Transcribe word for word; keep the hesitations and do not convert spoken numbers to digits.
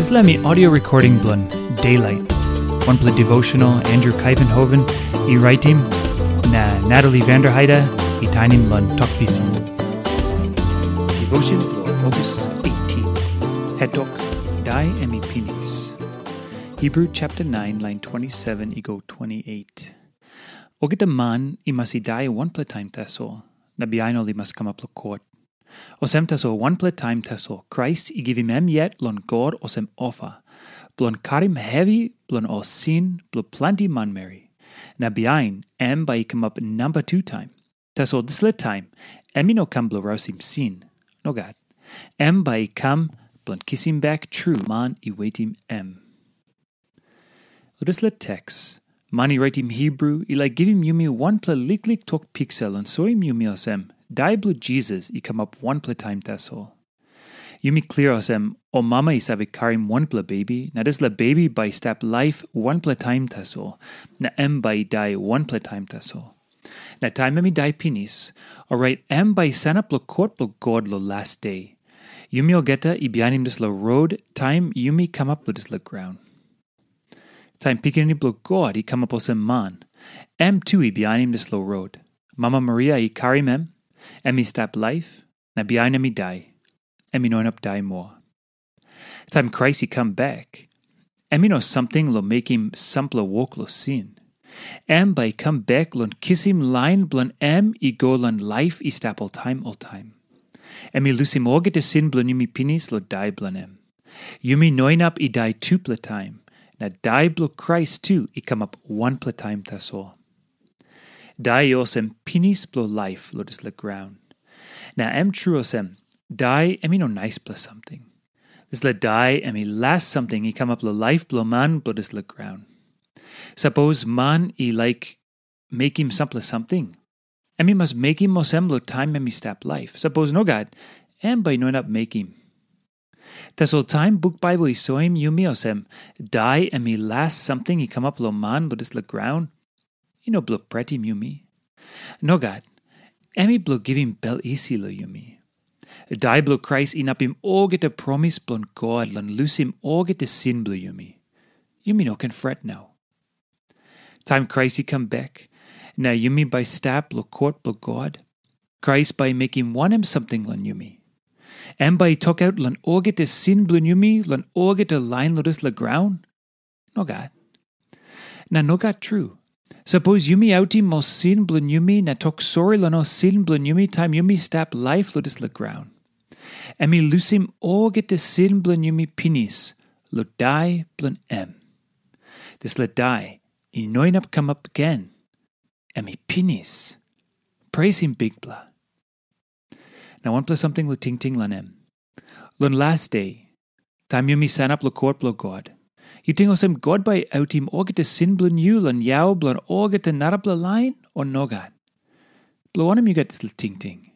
Dispela mi audio recording bilong Daylight, wanpela devotional Andrew Kaivenhoven i raitim, na Natalie Vanderheide i tainim long Tok Pisin. Devotion bilong August eighteen. Hetok, Dai em i pinis. Hebrew chapter nine, line twenty-seven i go twenty-eight. Olgeta man i mas i dai wanpela taim tasol, na bihain ol i mas kamap long kot. Olsem tasol wanpela taim tasol Krais i givim em yet long God olsem ofa, bilong karim hevi bilong ol sin bilong planti manmeri. Na bihain em bai i kamap namba tu taim. Tasol dispela taim em i no kam bilong rausim sin. Nogat. Em bai i kam bilong kisim bek tru man i wetim em. Long dispela teks, man i raitim Hebru i laik givim yumi wanpela liklik tok piksa long soim yumi olsem, dai bilong Jisas i kamap wanpela taim tasol. Yumi klia olsem, ol mama i save karim wanpela bebi, na dispela bebi bai i stap laip wanpela taim tasol, na em bai i dai wanpela taim tasol. Na taim em i dai pinis, orait em bai i sanap long kot bilong God long las de. Yumi olgeta i bihainim dispela rot taim yumi kamap long dispela graun. Taim Pikinini bilong God i kamap olsem man, em tu i bihainim dispela rot. Mama Maria i karim em, em i stap laip, na bihain em i dai. Em i no inap dai moa. Taim Krais i kam bek, em i no samting long mekim sampela wok long sin. Em bai i kam bek long kisim lain bilong em i go long laip i stap oltaim oltaim. Em i lusim olgeta sin bilong yumi pinis long dai bilong em. Yumi no inap i dai tupela taim, na dai bilong Krais tu i kamap wanpela taim tasol. Dai i olsem pinis bilong laip long dispela graun. Na em tru olsem, dai em i no naispela samting. Dispela dai em i las samting i kamap long laip bilong man bilong dispela graun. Sapos man i laik mekim sampela samting, em i mas mekim olsem long taim em i stap laip. Sapos nogat, em bai i no inap mekim. Tasol taim buk Baibel i soim yumi olsem, dai em i las samting i kamap long man long dispela graun, i no bilong pretim yumi. Nogat, em i bilong givim bel isi long yumi. Dai bilong Krais inapim olgeta promis bilong God long lusim olgeta sin bilong yumi. Yumi no ken fret nau. Taim Krais i kam bek, na yumi bai stap long kot bilong God, Krais bai i mekim wanem samting long yumi? Em bai i tokaut long olgeta sin bilong yumi long olgeta lain long dispela graun? Nogat. Na nogat tru. Sapos yumi autim ol sin bilong yumi na tok sori long ol sin bilong yumi taim yumi stap laip long dispela graun, em i lusim olgeta sin bilong yumi pinis long dai bilong em. Dispela dai i no inap kamap gen. Em i pinis. Presim Bikpela. Na wanpela samting long tingting long em. Long las de, taim yumi sanap long kot bilong God, yu ting olsem God bai i autim olgeta sin bilong yu long yau bilong olgeta narapela lain, o nogat? Bilong wanem yu gat dispela tingting?